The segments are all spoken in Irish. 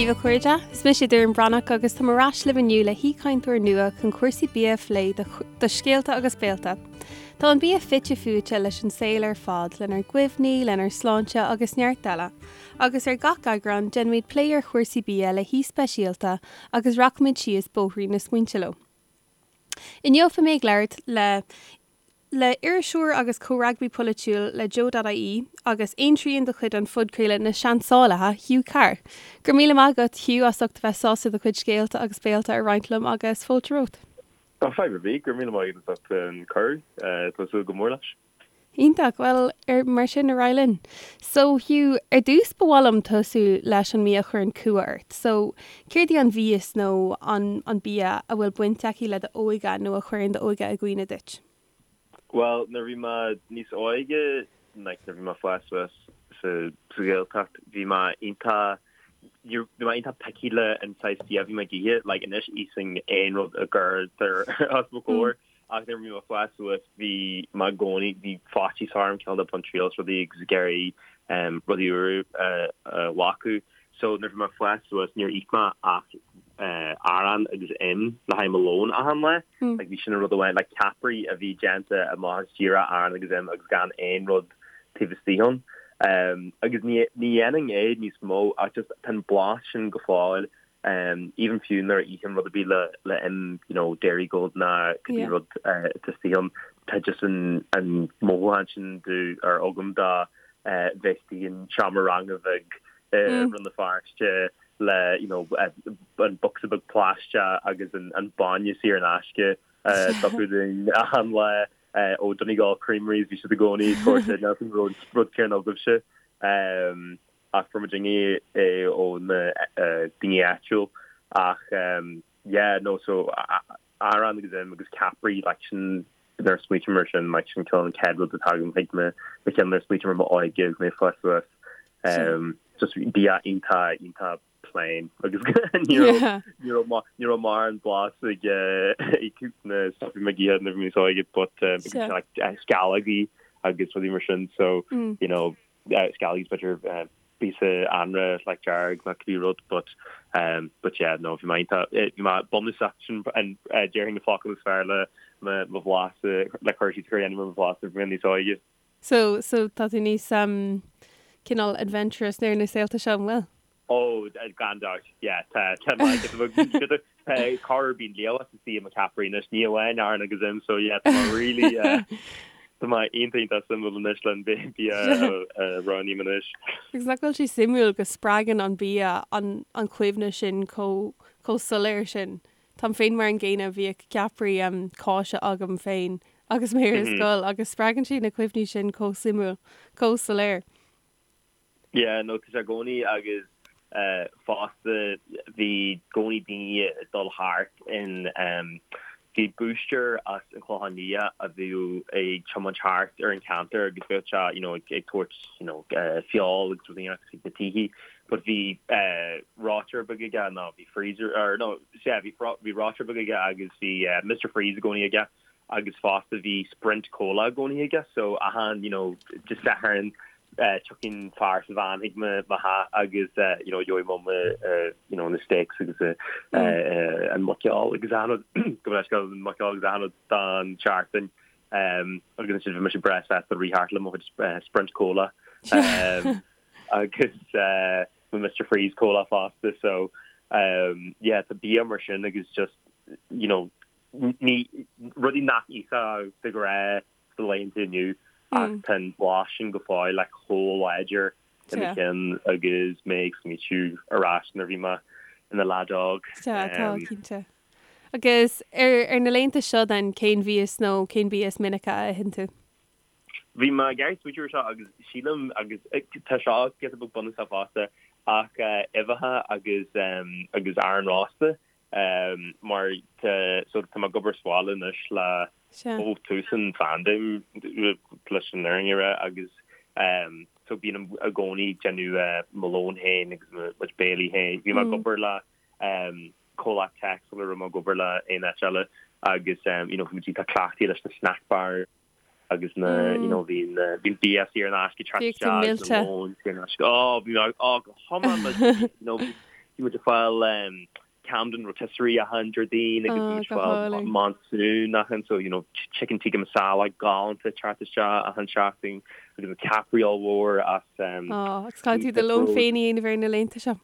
Dia daoibh a chairde, is mise Doireann Breathnach agus táim ar ais libh inniu le haoichainteoir nua chun cúrsaí bia a phlé do Scéalta agus Béalta. Tá an bia fite fuaite leis an saol ar fad, lenár gcuimhní, lenár sláinte agus neart eile. Agus ar gach eagrán, déanfaimid plé ar chúrsaí bia le haoi speisialta agus rachaimid síos bóithrín na smaointe leo. Inniu beidh mé ag labhairt le le iriseoir agus comhfhreagraí polaitiúil le Joe.ie agus aontrian de chuid an phodchraoladh Na Seansálaithe, Hugh Carr. Go raibh míle maith agat, Hugh, as ucht a bheith sásta do chuid scéalta agus béalta a roinnt liom agus fáilte romhat. Tá fadhb ar bith, go raibh míle maith agat as ucht an cuireadh, tá súil go mór leis. Iontach, bhuel ar mar sin ar aghaidh linn. So Hugh, ar dtús ba mhaith liom tosú leis an mbia a chuireann cumha ort. So céard í an mhias nó an an bia a bhfuil baint aici le d'óige nó a chuireann d'óige i gcuimhne duit? Bhuel nuair a bhí mé níos óige, like nuair a bhí mé ag fás suas sa sa Ghaeltacht, bhí mé iontach, bhí mé iontach picky le an saghas bia a bhí mé ag ithe, like anois íosfainn aon rud a gcuirtear os mo chomhair. Ach nuair a bhí mé ag fás suas bhí mé i gcónaí, bhí faitíos orm cineál de baint triail as rudaí agus ag iarraidh rudaí úra a ghlacadh. So nuair a bhí mé ag fás suas níor ith mé ach arán agus im le haghaidh mo lón achan lá. Like bhí sin an rud amháin, like ceapairí a bhí déanta amach as díreach arán agus im agus gan aon rud taobh istigh ann. Agus ní ní dhéanfainn é níos mó ach just tá an blas sin go fóill Even fiú nuair a ithim rud ar bith le le im, you know, Dairygold ná cibé Yeah. rud atá istigh ann, tá just an an mothúchán sin do ar agam de bheith istigh in seomra ranga bheag i Mm. Rann na Feirste le, you know, an bocsa beag plaisteach agus an an bainne saor in aisce a tugtar dúinn achan lá ó Donegal Creameries, bhí siad i gcónaí ag tabhairt níl an rud rud céanna agaibhse. Ach fuair muidinne é ó na daoine áitiúil ach yeah no so arán agus im agus ceapairí like sin nuair a smaoiním ar sin like sin cineál an chéad rud atá agam chuig mo mo cheann nuair a smaoiním ar m'óige agus mé ag fás suas just bia iontach iontach plain agus ní raibh ní raibh ní raibh mórán blas ag ag na stuff a bhí mé ag ithe nuair a bhí mé níos óige but like sceallógaí agus rudaí mar sin so you know sceallógaí b'fhéidir píosa anraith like dearg nó cibé rud but but yeah no bhí mé iontach bhí mé bunúsach sin an déarfainn na focail is fearr le mo mo bhlas le cur síos a chur dhéanamh ar mo bhlas nuair a bhí mé níos óige. So so tá tú níos cineál adventurous ar na saolta seo an bhfuil? Ó, gan dabht, yeah, tá, tá mé, tá corruair bíonn liamhás istigh i mo cheapairí anois, ní amháin arán agus im, so yeah, tá mé really, tá mé iontach, iontach suimiúil anois le an bia a roghnaím anois. Agus nach bhfuil sé suimiúil go spreagann an bia an an chuimhne sin chomh chomh soiléir sin. Táim féin mar an gcéanna, bhíodh ceapairí cáise agam féin agus mé ar scoil agus spreagann sé na cuimhní sin chomh suimiúil, chomh soiléir. Yeah, no, tá sé i gcónaí agus fosta bhí i gcónaí daoine ag dul thart in bhí búisteir as an Chlochán Liath a bhíodh ag tiomáint thart ar an cheantar agus bheadh sé, you know, ag tabhairt, you know, feoil agus rudaí chuig na tithe but bhí reoiteoir beag aige nó bhí freezer or no, yeah, bhí bhí reoiteoir beag aige agus bhí Mr Freeze i gcónaí aige agus fosta bhí Sprint Cola i gcónaí aige so achan, you know, Dé Sathairn tiocfaidh fear sa veain chuig mo theach agus you know gheobhaidh mum you know na steaks agus an muiceoil agus achan rud gabh mo leithscéal an muiceoil agus achan rud don tseachtain agus ansin bhí mise breá sásta rith thart le mo chuid Sprint Cola agus mo Mr Freeze Cola fosta so yeah tá bia mar sin agus just you know ní rudaí nach íosfá de ghnáth sa laethanta inniu ach tá an blas sin go fóill like chomh láidir i mo cheann agus mé ag smaoitiú ar ais nuair a bhí mé ina leaid óg. Sea, tá, cinnte. Agus ar ar na laethanta seo then, cén mhias nó cén bia is minice a itheann tú? Bhí mé ag iarraidh smaoitiú ar seo agus sílim agus tá seo giota beag bunúsach fosta ach uibheacha agus agus arán rósta mar tá so tá mé ag obair sa bhaile anois le ó tús an phaindéim leis an fhírinne a rá agus so bím i gcónaí ag déanamh mo lón féin agus mo chuid béilí féin. Bhí mé ag obair le comhlacht tech sula raibh mé ag obair le aon áit eile agus you know bhí muid iontach cleachtaithe leis na snack bars agus na you know bhí na bhí an bia saor in aisce ag teacht Bhíodh tú isteach agus millte. na lóin saor in aisce. Oh bhí mé oh go hiomlán millte you know bhí. Bhí muid ag fáil Camden Rotisserie achan Déardaoin agus bhí muid ag fáil Monsoon achan so you know chicken tikka masala galánta teacht isteach achan seachtain agus na ceapairí ollmhór as Á, agus caithfidh tú do lón féin a dhéanamh ar na laethanta seo.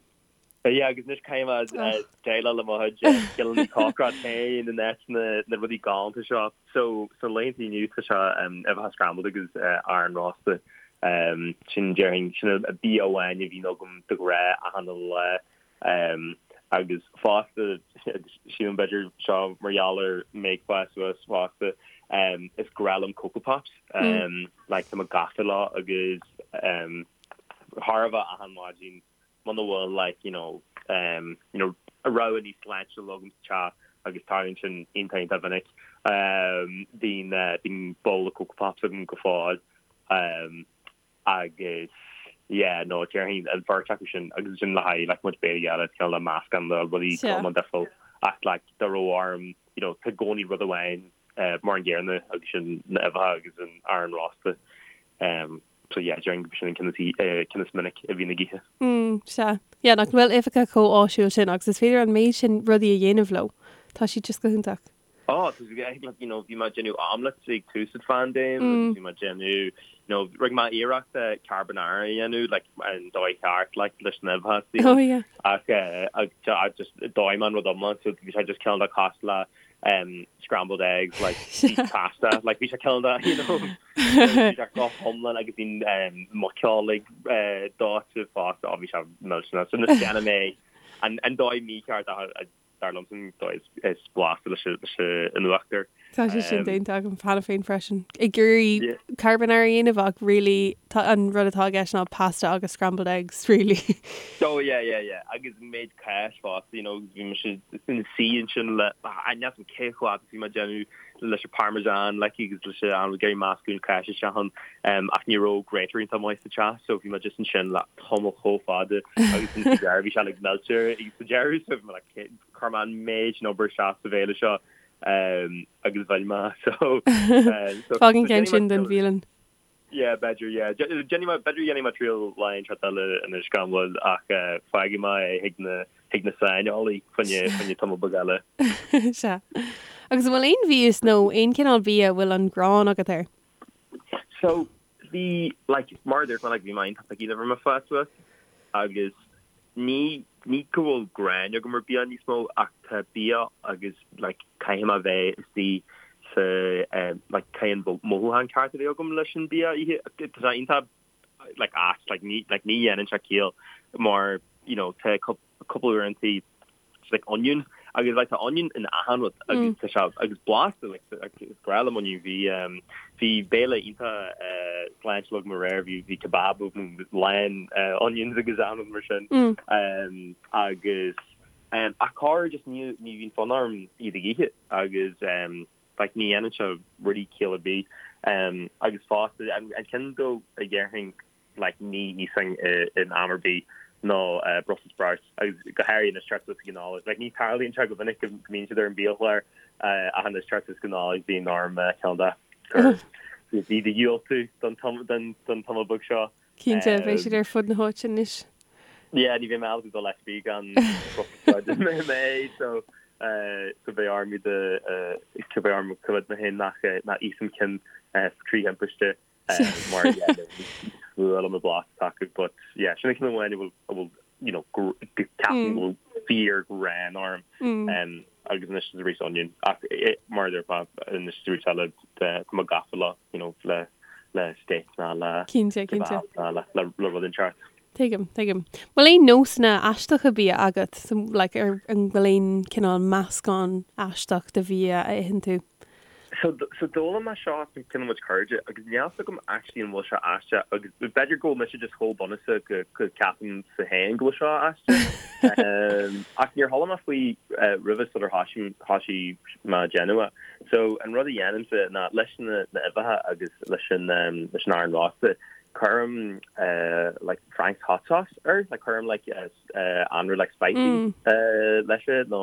Yeah, agus anois caithfidh mé déileáil le mo chuid scileanna cócaireachta féin in áit na rudaí galánta seo. So, sna laethanta inniu tá sé uibheacha scrambled agus arán rósta. Sin déarfainn, sin an bia amháin a bhíonn agam de ghnáth achan lá. Agus fosta, sílim b'fhéidir seo mar gheall ar mé ag fás suas fosta, is grá liom Coco Pops. Like, tá mé gafa leo agus thar a bheith achan maidin muna bhfuil like you know um you know rogha níos sláintiúla agam sa teach agus tarlaíonn sin iontach iontach mhinic um bíonn eh bíonn babhla Coco Pops agam go fóill um agus yeah no déarfainn an bheirt acu sin agus sin le haghaidh like mo chuid béilí eile cineál le meascán de rudaí go difriúil ach like dá raibh orm you know tá i gcónaí rud amháin eh mar an gcéanna agus sin na uibheacha agus an arán rósta um So yeah, déarfainn gurb sin an ceann is, ceann is minic a bhíonn ag ithe. Mm, sea. Yeah, nach bhfuil uibheacha chomh áisiúil sin agus is féidir an méid sin rudaí a dhéanamh leo. Tá siad just go hiontach. Oh, tá siad, like, you know, bhí mé ag déanamh omelets ag tús an phaindéim agus bhí mé ag déanamh, you know, rinne mé iarracht carbonara a dhéanamh, like, an dóigh cheart, like, leis na huibheacha istigh Oh, yeah. Ach, ach, just dóigh mé an rud iomlán, so bhí sé just cineál de cosúil le um, scrambled eggs, like, pasta, like, bhí sé cineál de, you know, bhí sé go hiomlán agus bhí um, muiceolig uh, dóite fosta, oh, bhí sé millteanach. So anois déanaim é an, an dóigh mícheart ach a- dar liomsa an dóigh is, is blasta leis an- leis an uachtar. Tá sé sin déanta agam cheana féin freisin. Ag iarraidh Yeah. carbonara a dhéanamh ach really tá an rud atá i gceist ná pasta agus scrambled eggs really. Oh yeah yeah yeah agus an méid cáis fosta you know bhí mise ina suí ansin le níl a fhios agam cé chomh fada is bhí mé ag déanamh leis an parmesan like agus leis an ag iarraidh meascadh an cáis isteach ann um, ach ní raibh grater iontach maith sa teach so bhí mé just ansin le tamall chomh fada agus sa deireadh bhí sé like meilte agus sa deireadh so bhí mé like chuir mé an méid sin obair isteach sa bhéile seo um, agus bhain mé so so Fág an ceann sin don bhialann. Yeah, b'fhéidir, yeah. Déanfaidh mé, b'fhéidir dhéanfaidh mé triail lá inteacht eile anois gan mhoill ach fágfaidh mé é chuig na, chuig na saineolaí fá choinne, fá choinne tamall beag eile. Sea. Agus an bhfuil aon mhias nó aon chineál bia a bhfuil an ghráin agat air? So, bhí, like, mar a dúirt mé, like, bhí mé iontach picky nuair a bhí mé ag fás suas agus ní, ní go bhfuil gráin agam ar bia níos mó ach tá bia agus like caithfidh mé bheith istigh sa like caithfidh an mothúchán ceart a bheith agam leis an bia a ithe. Tá sé iontach like ait like ní like ní dhéanann sé ciall mar you know tá cúpla uaireanta like onion agus like tá onion in achan rud agus tá sé agus blasta like is grá liom onion bhí um, bhí béile iontach uh, sláintiúil agam aréir bhí bhí kebab agam lán uh, onions agus achan rud mar sin mm. um, agus um, ach corruair just ní ní bhíonn fonn orm iad ag ithe agus um, like ní dhéanann sé really ciall ar bith um, agus fosta an, an ceann dó a dhéarfainn like ní íosfainn in am ar bith ná Brussels sprouts agus go háirithe anois teacht suas ag an Nollaig. Like ní tarlaíonn sé go minic go mbíonn siad ar an biachlár ach anois teacht suas go Nollaig bíonn orm ceann de gur iad a dhiúltú don don tamall beag seo. Cinnte, beidh siad ar fud na háite anois. Yeah, ní bheidh mé ábalta dul áit ar bith gan Brussels sprouts i mé so so beidh orm iad a beidh orm coimhéad mé féin nach nach íosfainn ceann trí thimpiste. mar yeah is fuath liom an blas atá acu but yeah sin an ceann amháin a bhfuil a bhfuil you know go ceapaim go bhfuil fíor ghráin orm um, agus anois is arís onion ach mar a déarfá anois is arís eile tá mé gafa le you know le le steak ná le Cinnte, cinnte. ná le le le rud inteacht. Tuigim, tuigim. Bhfuil aon nósanna aisteacha bia agat? So, like, ar an bhfuil aon cineál meascán aisteach de bhia a itheann tú? So, so d'fhoghlaim mé seo as ceann de mo chuid cairde agus níl a fhios agam actually an bhfuil seo aisteach agus b'fhéidir go bhfuil mise just chomh bunúsach go, go ceapaimse féin go bhfuil seo aisteach. um, ach níor chuala mé faoi uh, roimhe sular thoisigh, thoisigh mé ag déanamh é. So an rud a dhéanaimse ná leis na, na uibheacha agus leis an, um, leis an arán rósta, cuirim uh, like Frank's hot sauce air, like cuirim like uh, anraith like spicy leis é nó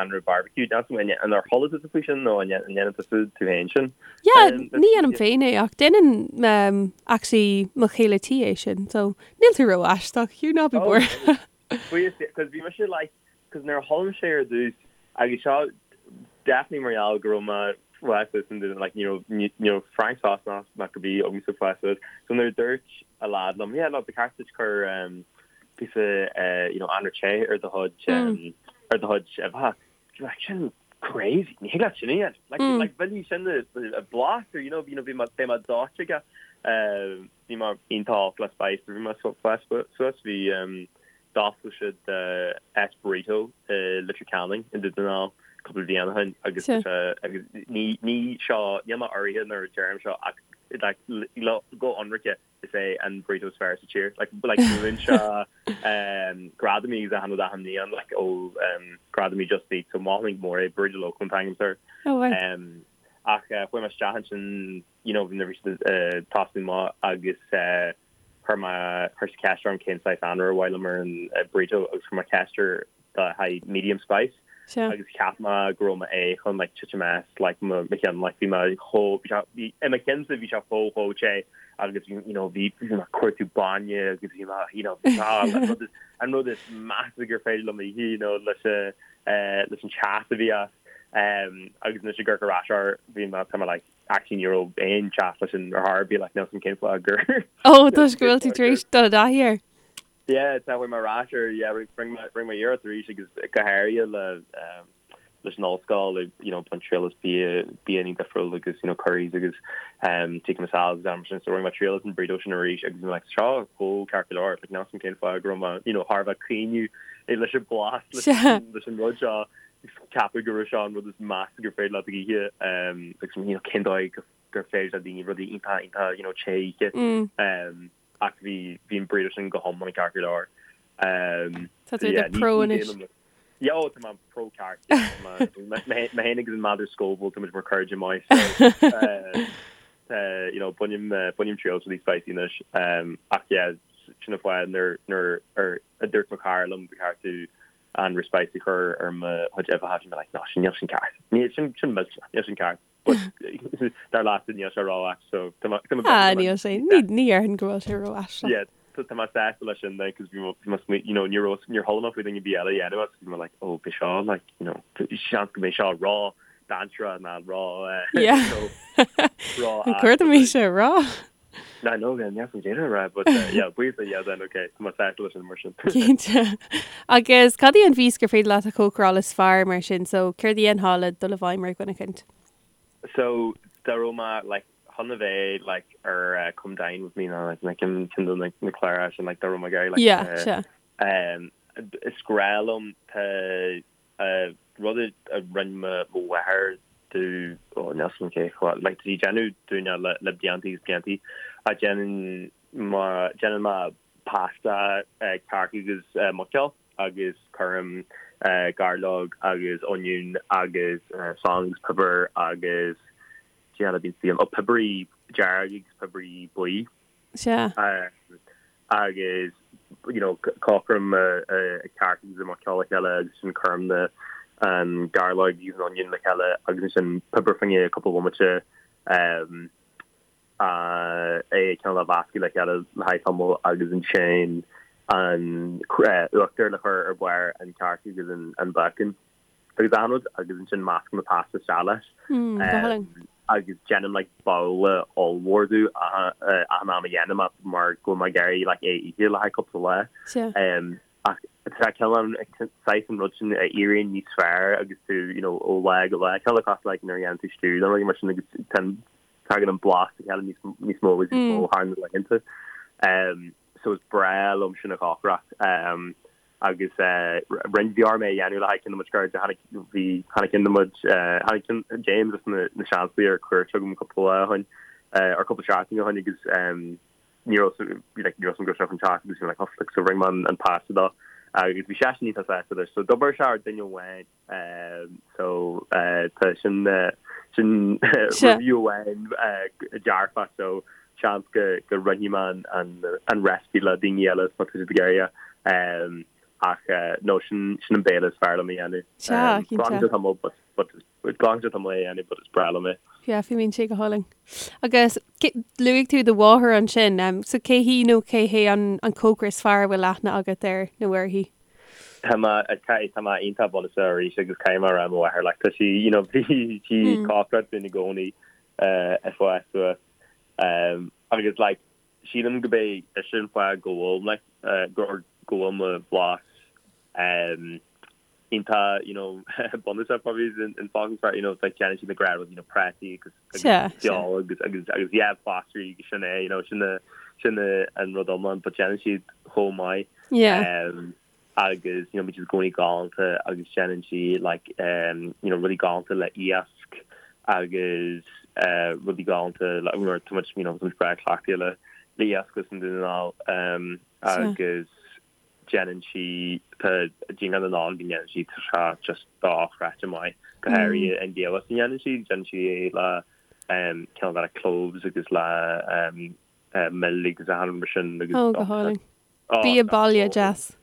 anraith barbecue. An ar chuala tusa faoi sin nó an ndéanann tusa tú féin sin? Yeah, ní dhéanaim féin é ach déanann actually mo chéile tí é sin, so níl tú ró-aisteach, Hugh, ná bí buartha. Buíochas Dé, 'cause bhí mise like, 'cause nuair a chuala mise é ar dtús, agus seo definitely mar gheall go raibh mé fás suas in Dún, like ní raibh, ní raibh Frainc Sasanach ná cibé agamsa fás suas, so nuair a dúirt a lad liom, yeah no, ba cheart duit cur um, píosa uh, you know, anraith te ar do chuid, um, ar do chuid uibheacha, like sin crazy, ní thig leat sin a dhéanamh, like, like mhillfidh sin a blas or you know, you know, bhí mé, beidh mé dóite aige, um, Bhí mé iontach olc le spice nuair a bhí mé ag fás suas. Bhí d'oscail siad áit burrito i Leitir Ceanainn i nDún na nGall cúpla bliain ó shin agus tá sé agus ní ní seo níl mé urraithe nuair a deirim seo ach like go hionraice is é an burrito is fearr sa tír. Like like buann sé gradaim agus achan rud achan mbliain like ó gradaim Just Eat so mholfainn go mór é Burrito Loco an t-ainm air. Oh right. Ach chuaigh mé isteach ansin you know, nuair a bhí siad ag tosnú amach agus chuir mé, chuir siad ceist orm cén saghas anraith ar mhaith liom ar an burrito agus chuir mé ceist air le haghaidh medium spice agus cheap mé go raibh mé chun like titim as like mo cheann like bhí mé chomh, bhí sé, bhí, i mo cheannsa bhí sé chomh chomh te agus bhí, you know, bhí, bhí mé ag cuartú bainne agus bhí mé, you know, bhí sé, an rud is, an rud is measa gur féidir liom a ithe, you know, leis an, leis an teas a bhí as agus anois ag amharc ar ais air bhí mé, tá mé like, Actually ní raibh aon teas leis sin ar chor ar bith like níl 'fhios a'm cén fáth gur Ó toisc go bhfuil tú tar éis dul i dtaithí air. Yeah tá chuaigh mé ar ais air yeah rinne mé rinne mé iarracht arís agus go háirithe le um, leis an ollscoil like, you know baint triail as bia bianna difriúil agus you know curries agus um, tikka masala agus am sin so rinne mé triail as an burrito sin arís agus bhí mé like seo chomh ceart go leor like níl 'fhios a'm cén fáth go raibh mé you know thar a bheith caoineadh leis an blas leis leis an rud seo ceapadh go raibh seo an rud is measa gur féidir leat a ithe agus you know cén dóigh gur féidir le daoine rudaí iontach iontach you know te a ithe ach bhí bhí an burrito sin go hiomlán ceart go leor. Tá tú i do pro anois. Yeah, oh, tá mé pro ceart. Mé féin agus an méadar Scoville tá muid mar cairde maith so you know bainim bainim triail as rudaí spicy anois ach yeah sin an fáth nuair nuair a dúirt mo chara liom ba cheart tú anraith spicy a chur ar mo chuid uibheacha, bhí mé like, no, sin, níl sin ceart. Níl, sin, sin millteanach, níl sin ceart. But dar leatsa níl sé ró-ait, so tá mé, tá mé Ah, níl sé, ní, ní dhéarfainn go bhfuil sé ró-aisteach. Yeah, tá, tá mé sásta leis sin then, cos bhí mé, bhí mé smaoin, you know, ní raibh, níor chuala mé faoi duine ar bith eile a dhéanamh agus bhí mé like, oh, beidh seo, like, you know, seans go mbeidh seo ró dainséarach ná ró, eh, Yeah. you know, ró An cuir mé sé rá? No, no, yeah, níl san déanamh rá, but uh, yeah, buíochas le Dia then, okay, tá mé sásta leis sin mar sin. Cinnte. Agus cad í an mhias gur féidir leat a chócaráil is fearr mar sin, so céard a dhéanfá le dul i bhfeidhm ar dhuine eicint? So, dá raibh mé, like, chun a bheith, like, ar uh, Come Dine With Me nó, like, na cinn cinn de na, na cláracha sin, like, dá raibh mé ag iarraidh, like, Yeah, uh, sea. um, is grá liom, tá Rud a rinne mo mháthair domh, ó níl 'fhios a'm cé chomh, like tá sí ag déanamh dúinne le le blianta agus blianta ach déanann mo déanann mé pasta cearc agus muiceoil agus cuirim gairleog agus oinniún agus salann agus piobar agus cad eile a bhíonn istigh ann, ó piobarí dearg agus piobarí buí. Sea. Agus you know cócairim an cearc agus an muiceoil le chéile agus ansin cuirim na an gairleog agus an onion le chéile agus ansin piobar fá choinne cúpla bomaite é cineál a mheascadh le chéile le haghaidh tamall agus ansin an uachtar le cur ar bharr an cearc agus an bacon. agus achan rud agus ansin meascaim an pasta isteach leis. Mm, go hálainn. Agus déanaim like babhla ollmhór de achan am a dhéanaim é mar go bhfuil mé ag iarraidh like é a ithe le haghaidh cúpla lá. Sea. Ach tá cineál saghas an rud sin a éiríonn níos fearr agus tú you know ó lá go lá. Cineál cosúil like nuair a dhéanann tú stew nó rudaí mar sin agus tagann an blas le chéile níos níos mó agus níos mó thar na laethanta. So is breá liom sin a chócaireacht. Agus rinne, bhí orm é a dhéanamh le haghaidh ceann de mo chuid cairde, tháinig, bhí, tháinig ceann de mo chuid, tháinig ceann, James as na, na Seansálaithe ar cuairt chugam cúpla lá ó shin, or cúpla seachtain ó shin agus ní raibh, bhí like, ní raibh 'fhios a'm go raibh sé chun teacht agus bhí mé like, oh, like, so rinne mé an, an pasta dó agus bhí seisean iontach sásta leis. So d'oibir sé ar duine amháin. So tá sin sin review amháin dearfach so seans go go roinnfidh mé an an recipe le daoine eile má tá siad ag iarraidh. Ach no sin sin an béile is fearr liom a dhéanamh. Sea, cinnte. Glacann sé tamall but but glacann sé tamall é a dhéanamh but is breá liom é. Yeah, fuaimníonn sé go hálainn. Agus luaigh tú do mháthair ansin, so cé hí nó cé hé an an cócaire is fearr a bhfuil aithne agat air nó uirthi? Tá mé, tá mé iontach bunúsach arís agus caithfidh mé a rá mo mháthair like tá sí, you know, bhí sí ag cócaireacht dúinn i gcónaí ag fás suas agus like sílim go b'é sin an fáth go bhfuil like go go bhfuil mo bhlas iontach you know bunúsach probably is an focal is fearr you know like déanann siad na gnáthrudaí you know prátaí agus agus feoil agus agus agus yeah glasraí agus sin é you know sin sin an rud iomlán but déanann siad chomh maith yeah um, agus you know bíonn siad i gcónaí galánta agus déanann sí like um, you know rudaí galánta le iasc agus uh, rudaí galánta le nuair tá muid you know tá muid breá cleachtaithe le le iasc agus an Dún na nGall um, agus déanann sí, tá díngear na Nollag a ndéanann sí, tá sé just dochreidte maith, go háirithe an giamhas a ndéanann sí, déanann sí é le cineál de cloves agus le mil agus achan rud mar sin agus Ó, go hálainn. Bia baile deas.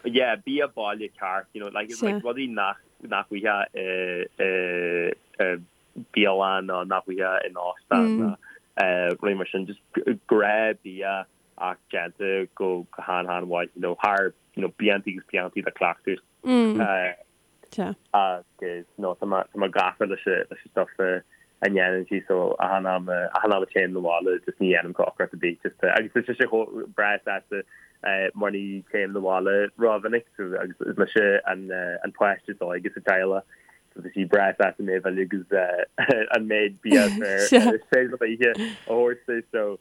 Yeah, bia baile ceart, you know, like, like rudaí nach, nach bhfaighfeá i, i, bialann nó nach bhfaighfeá in óstán nó rudaí mar sin, just gnáthbhia ach déanta go han-han-mhaith, you know, thar, you know, blianta agus blianta de chleachtadh. Agus, no, tá mé, tá mé gafa leis an, leis an stuff a ndéanann sí, so achan am, achan am a téim 'na bhaile, just ní dhéanaim cócaireacht ar bith, just, agus tá sise chomh breá sásta mar ní téim 'na bhaile rómhinic, so, agus is mise an, an páiste is óige sa teaghlach, so tá sí breá sásta mé a mhilleadh agus an méid bia is féidir liom a ithe a thabhairt di, so,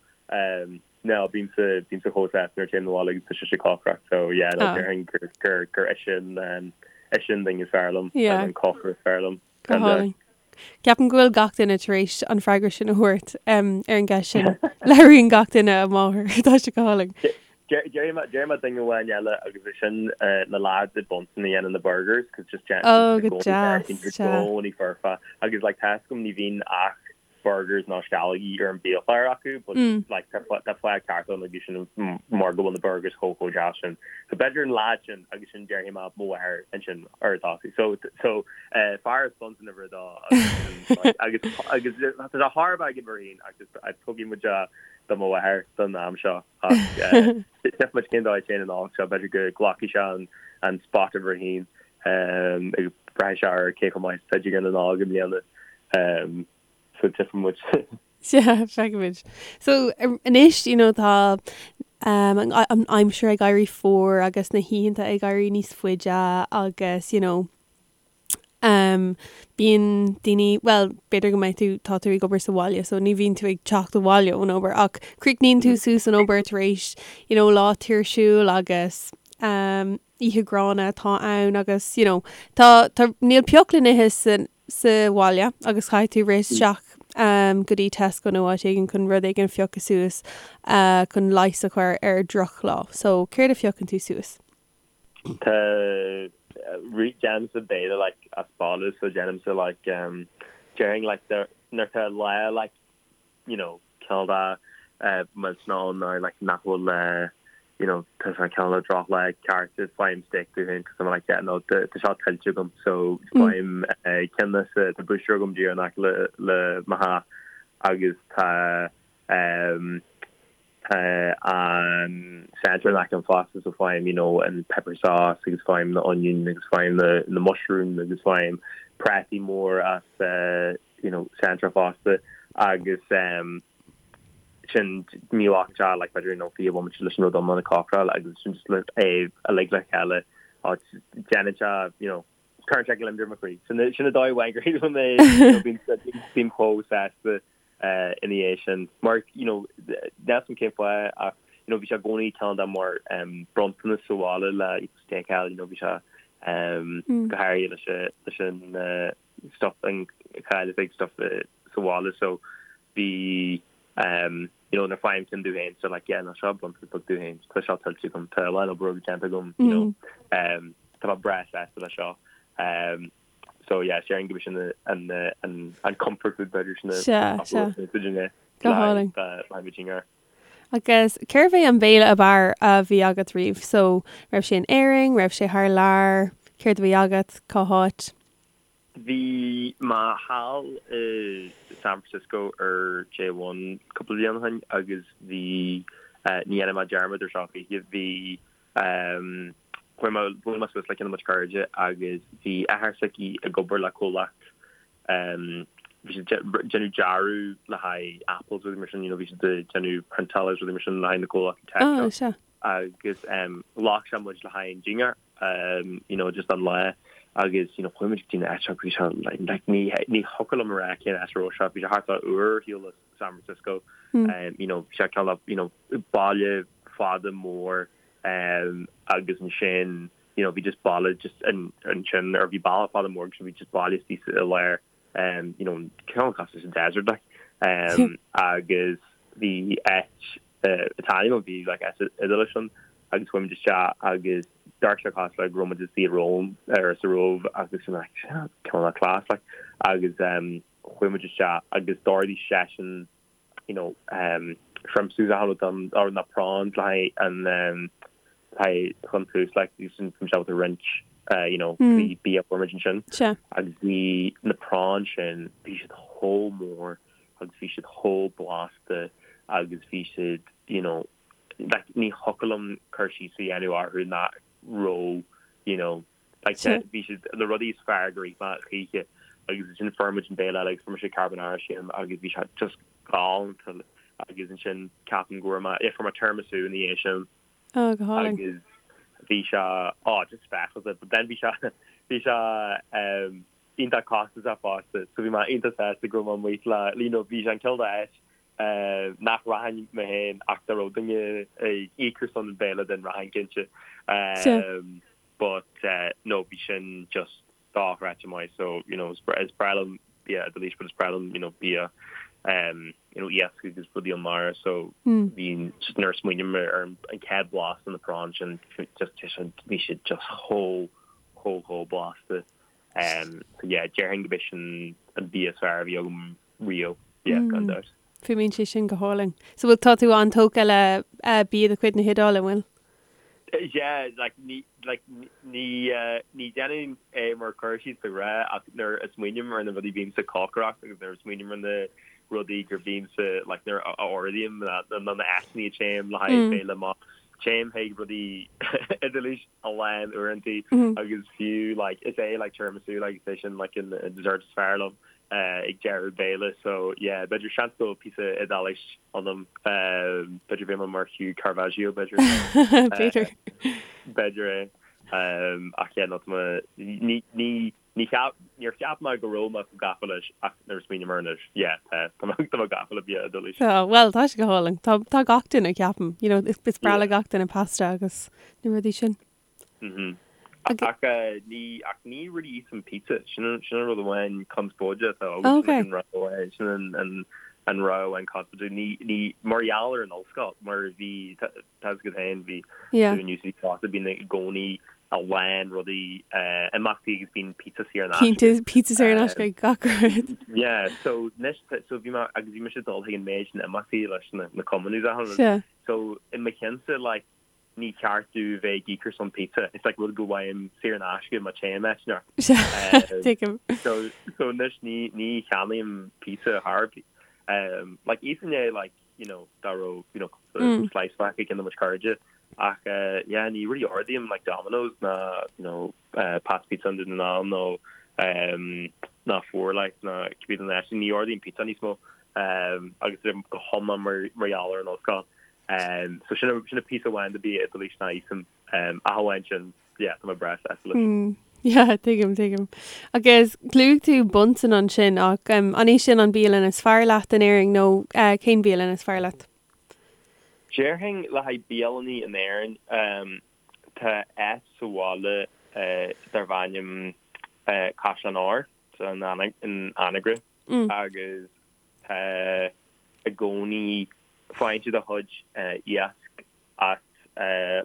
No, bímse, bímse chomh sásta nuair a téim 'na bhaile agus tá sise ag cócaireacht, so yeah, no, déarfainn gur, gur, gur ise an, ise an duine is fearr liom, Yeah. an cócaire is fearr liom. Go hálainn. Ceapaim go bhfuil gach duine tar éis an freagra sin a thabhairt um, ar an gceist sin. Labhraíonn gach duine a máthair, tá sé go hálainn. Déarfaidh mé, déarfaidh mé duine amháin eile agus é sin na lads i Bunsen a dhéanann na burgers, cos just déanann Oh, go deas, i gcónaí foirfe. Agus like tá a fhios agam ní bhíonn ach burgers nó sceallógaí ar an biachlár acu but like tá fáth ceart ann agus sin mar go bhfuil na burgers chomh chomh deas sin. So b'fhéidir an lad sin agus sin déarfaidh mé mo mháthair ansin ar dtosaigh. So so fear as Bunsen uimhir a dó agus agus agus tá sé thar a bheith ag uimhir a haon ach just tógfaidh muid do mo mháthair don am seo ach tchífidh muid cén dóigh a dtéann an Nollaig seo b'fhéidir go nglacfaidh sé an an spot uimhir a haon agus braithfidh sé ar cé chomh maith is atá Dingear na Nollag i mbliana. So tchífidh muid. Sea, feicfimid. So anois, you know, tá um, an aimsir ag éirí fuar agus na hoícheanta ag éirí níos faide agus, you know, um, bíonn daoine, well, b'fhéidir go mbeidh tú, tá tú ag obair sa bhaile, so ní bhíonn tú ag teacht abhaile ón obair ach críochnaíonn tú suas an obair tar éis, you know, lá tuirsiúil agus um, oíche ghránna atá ann agus you know tá tá níl pioc le n-ithe sa sa bhaile agus caithfidh tú rith isteach um, go dtí Tesco nó áit éigin chun rud éigin a phiocadh suas uh, chun leigheas a chur ar drochlá. So céard a phiocann tú suas? Tá déanaimse béile like as baile so déanaimse like um, déarfainn like nuair atá lá like you know, cineál de millteanach ann nó like nach bhfuil you know, tá sé cineál de drochlá ceart faighim steak domh féin cos I'm like yeah no tá seo tuillte agam so faighim ceann sa tá butcher agam díreach in aice le le mo theach agus tá um, tá an centre in aice liom fosta so faighim you know an pepper sauce agus faighim na onion agus faighim na na mushroom agus faighim prátaí mór as uh, you know, Centra fosta agus um, sin ní ghlacann sé like b'fhéidir you know 20 bomaite leis an rud iomlán a chócaráil agus sin just le é uilig le chéile déanann sé you know cuireann sé gliondar i mo chroí. Sin sin an dóigh amháin gur shíl mé you know bím bím chomh sásta uh, ina dhiaidh sin mar you know níl a fhios agam cén fáth ach you know bhí sé i gcónaí cineál de mar um, bronntanas sa bhaile le steak you know bhí sé um, mm. go háirithe leis leis an uh, stuff an cháil is ag stuff sa bhaile so bhí um you know nuair faighim ceann domh féin so like yeah no seo bronntanas beag domh féin tá seo tuillte agam tá a lán obair déanta agam you know um tá mé breá sásta le seo um so yeah déarfainn go sin an an an comfort food b'fhéidir sin Sea, sea. Go hálainn. Agus cérbh é an béile ab fhearr a bhí agat riamh? So raibh sé in Éirinn, raibh sé thar lear, céard a bhí agat, cá háit? Bhí mé thall i San Francisco ar J1 cúpla bliain ó shin agus bhí, ní dhéanfaidh mé dearmad ar seo choíche, bhí. Chuaigh mé, bhuail mé suas le ceann de mo chuid cairde agus bhí athair s'aici ag obair le comhlacht, bhí siad ag déanamh dearadh le haghaidh Apple is rudaí mar sin, you know, bhí siad ag déanamh priontáil agus rudaí mar sin le haghaidh na comhlachtaí tech seo. Oh, sea. Agus ghlac sé muid le haghaidh an dinnéar, you know, just an lá agus, you know, chuaigh muid go dtí an áit seo, bhí sé like, ní, ní thiocfadh liom a rá cén áit a raibh sé, bhí sé thart fá uair ar shiúl as San Francisco, you know, bhí sé cineál, you know, baile fada mór, agus ansin you know bhí just baile just ansin or bhí baile fada mór agus bhí just baile istigh i lár you know cineál cosúil leis an desert like agus bhí áit Italian bhí like áit Iodáilis ann agus chuaigh muid isteach agus d'amharc sé cosúil le go raibh muid istigh i Rome ar sa Róimh agus bhí mé like cineál class like agus chuaigh muid isteach agus d'ordaigh seisean you know, shrimps agus achan rud don, or na prawns le haghaidh an, le haghaidh chun tús like bhí sin bhí muid ábalta roinnt you know bhí bia fuair muid ansin agus bhí na prawns sin bhí siad chomh mór agus bhí siad chomh blasta agus bhí siad you know like ní thiocfadh liom cur síos a dhéanamh orthu nach raibh you know Like bhí siad na rudaí is fearr gur ith mé choíche agus ansin fuair muid an béile eile agus fuair mise carbonara sílim agus bhí sé just galánta agus ansin ceapaim go bhfuair mé, yeah, fuair mé tiramisu ina dhiaidh sin. Oh, go hálainn. Agus bhí sé, oh, just speisialta, but then bhí sé, bhí sé um, iontach costasach fosta, so bhí mé iontach sásta go raibh mé amuigh le, you know, bhí sé an cineál d'áit uh, nach rachainn mé féin ach dá raibh duine ag íoc ar son an béile then rachainn cinnte. Um, but no bhí sin just dochreidte maith so you know is breá liom bia Iodáilis but is breá liom you know bia um you know iasc agus rudaí ón mara so bhí just nuair a smaoiním ar an chéad blas de na prawns sin just bhí siad just chomh chomh chomh blasta um so yeah déarfainn go b'é sin an bia is fearr a bhí agam riamh yeah gan dabht. Fuaimíonn sé sin go hálainn. So bhfuil tá tú an-tógtha le bia de chuid na hIodáile, an bhfuil? Yeah, like ní like ní ní déanaim é mar cur síos de ghnáth ach nuair a smaoiním ar na rudaí bímse ag cócaireacht agus nuair a smaoiním ar na rudaí gur bímse like nuair a ordaím na na na áiteanna a téim le haghaidh béile maith téim chuig rudaí Iodáilis a lán uaireanta agus fiú like is é like tiramisu like is é sin like an dessert is fearr liom. ag deireadh béile so yeah b'fhéidir seans go bhfuil píosa Iodáilis ionam b'fhéidir bheidh mé mar Hugh Caravaggio b'fhéidir B'fhéidir. B'fhéidir é ach yeah no tá mé ní ní ní cheap níor cheap mé go raibh mé chomh gafa leis ach nuair a smaoiním air anois yeah tá tá mé tá mé gafa le bia Iodáilis. Tá bhuel tá sé go hálainn tá tá gach duine ceapaim you know is is breá le gach duine pasta agus na rudaí sin. Ach ní ach ní really íosaim pizza. Sin an sin an rud amháin conspóide atá agam. Sin an rud amháin sin an an an rud amháin conspóide. Ní ní mar gheall ar an ollscoil mar bhí tá fhios agat féin bhí tú in UCD fosta bíonn i gcónaí a lán rudaí imeachtaí agus bíonn pizza saor in aisce. Cinnte pizza saor in aisce ag gach rud. Yeah so anois so bhí mé agus bhí mise ag dul chuig an méid sin imeachtaí leis na na cumainn agus achan rud. So i mo cheannsa like ní ceart domh bheith ag íoc ar son pizza. It's like rud go bhfaighim saor in aisce má téim áit inteacht. Tuigim. So so anois ní ní cheannaím pizza thar um like íosfainn é like you know dá raibh you know cúpla slice fágtha ag ceann de mo chairde ach uh yeah ní really ordaím like Domino's ná you know uh Pat's Pizza i nDún na nGall nó um ná Four like ná cibé den áit ní ordaím pizza níos mó um agus go hiomlán mar mar gheall ar an ollscoil. So sin sin an píosa amháin de bia Iodáilis nach íosaim. Ach amháin sin, yeah, tá mé breá sásta leis. Yeah, tuigim, tuigim. Agus luaigh tú Bunsen ansin ach an é sin an bialann is fearr leat in Éirinn nó cén bialann is fearr leat? Déarfainn le haghaidh bialannaí in Éirinn, tá áit sa bhaile darb ainm Caisleán Óir in Anagaire agus tá i gcónaí faigheann siad a chuid iasc as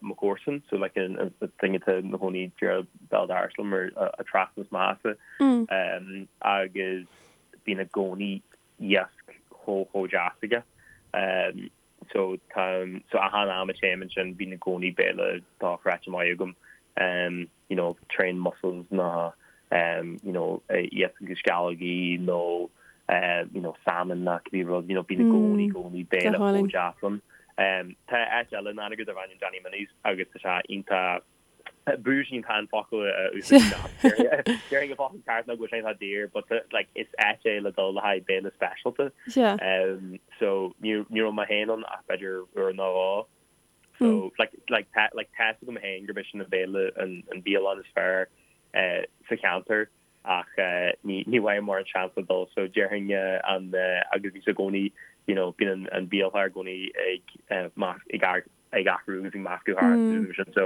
mo chomharsan, so like an duine atá ina chónaí díreach béal dorais liom ar an trasna as mo theachsa agus bíonn i gcónaí iasc chomh chomh deas aige. So tá so achan am a téim ansin bíonn i gcónaí béile dochreidte maith agam you know trained mussels nó you know iasc agus sceallógaí nó you know salmon nó cibé rud you know bíonn i gcónaí gcónaí béile chomh deas ann. Tá áit eile in Anagaire darb ainm Danny Minnie's agus tá sé iontach. Bougie an focal a úsáid. Déarfainn an focal ceart ná go bhfuil sé atá daor but like is áit é le dul le haghaidh béile speisialta. So ní raibh mé féin ann ach b'fhéidir uair nó dhó. So like like tá like tá a fhios agam féin gurb é sin an béile an an bialann is fearr sa cheantar ach ní ní bhfaighim mórán seans le dul so déarfainn an agus bhí sé i gcónaí you know bíonn an an biachlár i gcónaí ag ag ag athrú agus ag meascadh thart agus sin so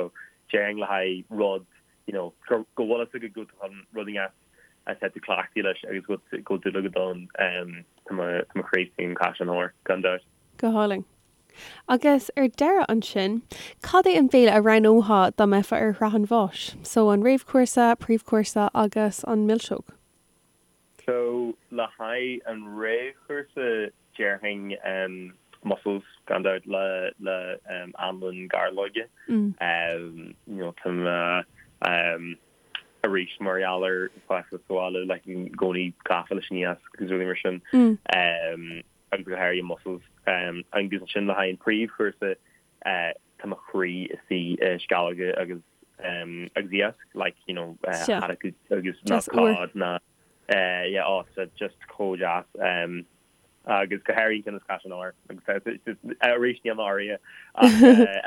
déarfainn le haghaidh rud you know go go bhfuil fhios agat go bhfuil rud inteacht atá tú cleachtaithe leis agus go go bhfuil dúil agat ann tá mo tá mo chroí istigh in Caisleán Óir gan dabht. Go hálainn. Agus ar deireadh ansin, cad é an béile a roghnófá dá mbeifeá ar shraith an bháis? So an réamhchúrsa, príomhchúrsa agus an milseog. So le haghaidh an réamhchúrsa déarfainn mussels gan dabht le le anlann gairleoige. You know tá mé arís mar gheall ar fás sa bhaile like i gcónaí gafa leis an iasc agus rudaí mar sin. Agus go háirithe mussels. Agus ansin le haghaidh an príomhchúrsa tá mo chroí istigh i sceallóga agus agus iasc like you know haddock agus ná cod ná yeah oh tá just chomh deas agus go háirithe an ceann as Caisleán Óir agus arís níl mé áirithe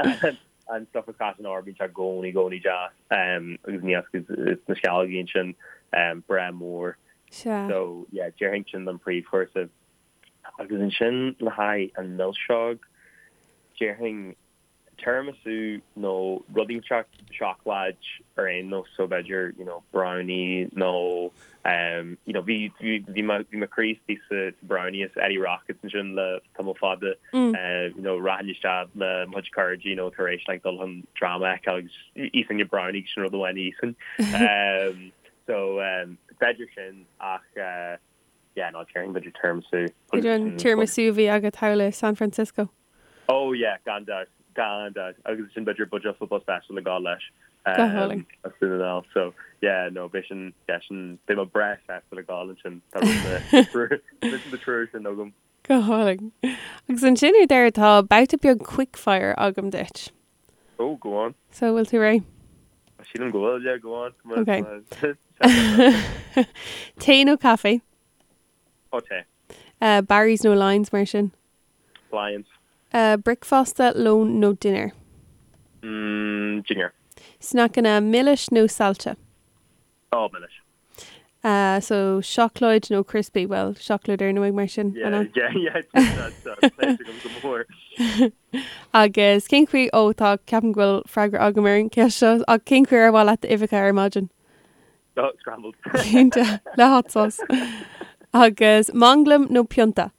ach an stuff as Caisleán Óir bíonn sé i gcónaí i gcónaí deas agus an iasc is na sceallógaí ansin breá mór so yeah déarfainn sin don príomhchúrsa. Agus ansin le haghaidh an milseog, déarfainn tiramisu nó rud inteacht seacláid ar aon nós, so b'fhéidir you know brownie nó um you know bhí bhí bhí mo bhí mo chroí istigh sa sa brownie as Eddie Rockets ansin le tamall fada you know rachainn isteach le mo chuid cairde you know tar éis like dul chun dráma a fheiceáil agus íosfainn an brownie sin rud amháin a íosfainn. Um so um b'fhéidir sin ach uh Yeah, no, déarfainn b'fhéidir tiramisu. B'fhéidir an tiramisu a bhí agat thall i San Francisco. Oh yeah, gan dabht, gan dabht. Agus ansin b'fhéidir buidéal football special le gabháil leis. Go hálainn. As Dún na nGall. So, yeah, no, beidh sin, yeah, sin, beidh mé breá sásta le gabháil ansin. Tá rud na, na triúr sin agam. Go hálainn. Agus ansin ar deireadh tá babhta beag quickfire agam duit. Oh, go on. So, bhfuil tú réidh? Sílim go bhfuil, yeah, go on. Okay. Tae nó caife? Oh, tae. Uh, Barry's nó Lyons mar sin? Lyons. Uh, bricfeasta, lón nó dinnéar? Mm, dinnéar. Sneaiceanna milis nó saillte? Oh, milis. Uh, so seacláid nó crispy, well, seacláid ar ndóigh mar sin, an ea? Yeah, yeah, yeah, go mór. Agus cén chaoi, ó tá, ceapaim go bhfuil freagra agam ar an gceist seo, ach cén chaoi ar mhaith leat d'uibheacha ar maidin? Oh, scrambled. Cinnte, le hot sauce. Agus manglam nó pionta?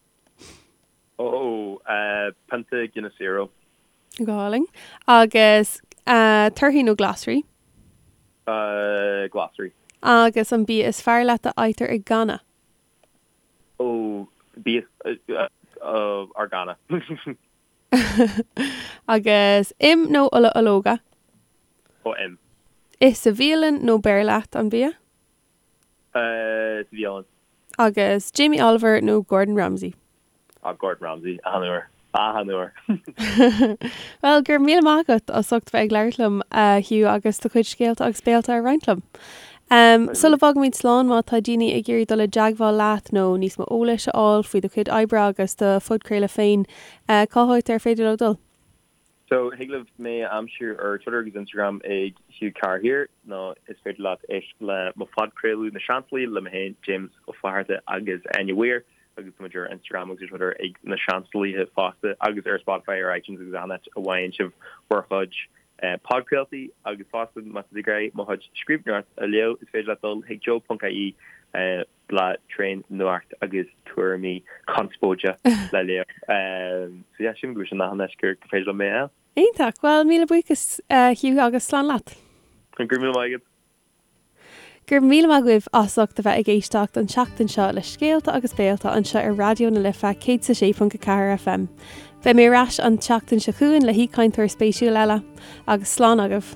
Ó, pionta Guinness Zero. Go hálainn. Agus torthaí nó glasraí? Glasraí. Agus an bia is fearr leat a fhaightear i gcanna? Ó, bia ár gcanna. Agus im nó ola ológa? Ó, im. Ith sa bhialann nó beir leat an bia? Sa bhialann. Agus Jamie Oliver nó Gordon Ramsay? Ah, Gordon Ramsay, achan uair. Achan uair. Bhuel, go raibh míle maith agat as ucht bheith ag labhairt liom, a Hugh, agus do chuid scéalta agus béalta a roinnt liom. Sula bhfágaimid slán, má tá daoine ag iarraidh dul i dteagmháil leat nó níos mó eolais a fháil faoi do chuid oibre agus do phodchraoladh féin, cá háit ar féidir leo dul? So, thig libh mé a aimsiú ar Twitter agus Instagram ag Hugh Carr Here, nó is féidir leat éisteacht le mo phodchraoladh Na Seansálaithe le mé féin, James Ó Flatharta agus Áine Weir, agus tá muid ar Instagram agus ar Twitter ag Na Seansálaithe fosta, agus ar Spotify, ar iTunes agus achan áit a bhfaigheann sibh bhur chuid podchraoltaí. Agus fosta, má tá tú ag iarraidh mo chuid scríbhneoireacht a léamh, is féidir leat dul chuig joe.ie. blag tréan nuacht agus tuairimí conspóide le léamh. So yeah, sílim go bhfuil sin achan áit gur féidir liom mé a fháil. Iontach! Bhuel, míle buíochas Hugh agus slán leat. Go raibh míle maith agat. Go raibh míle maith agaibh as ucht a bheith ag éisteacht an tseachtain seo le Scéalta agus Béalta anseo ar Raidió na Life 106.4 FM. Beidh mé ar ais an tseachtain seo chugainn le haoichainteoir spéisiúil eile. Agus slán agaibh.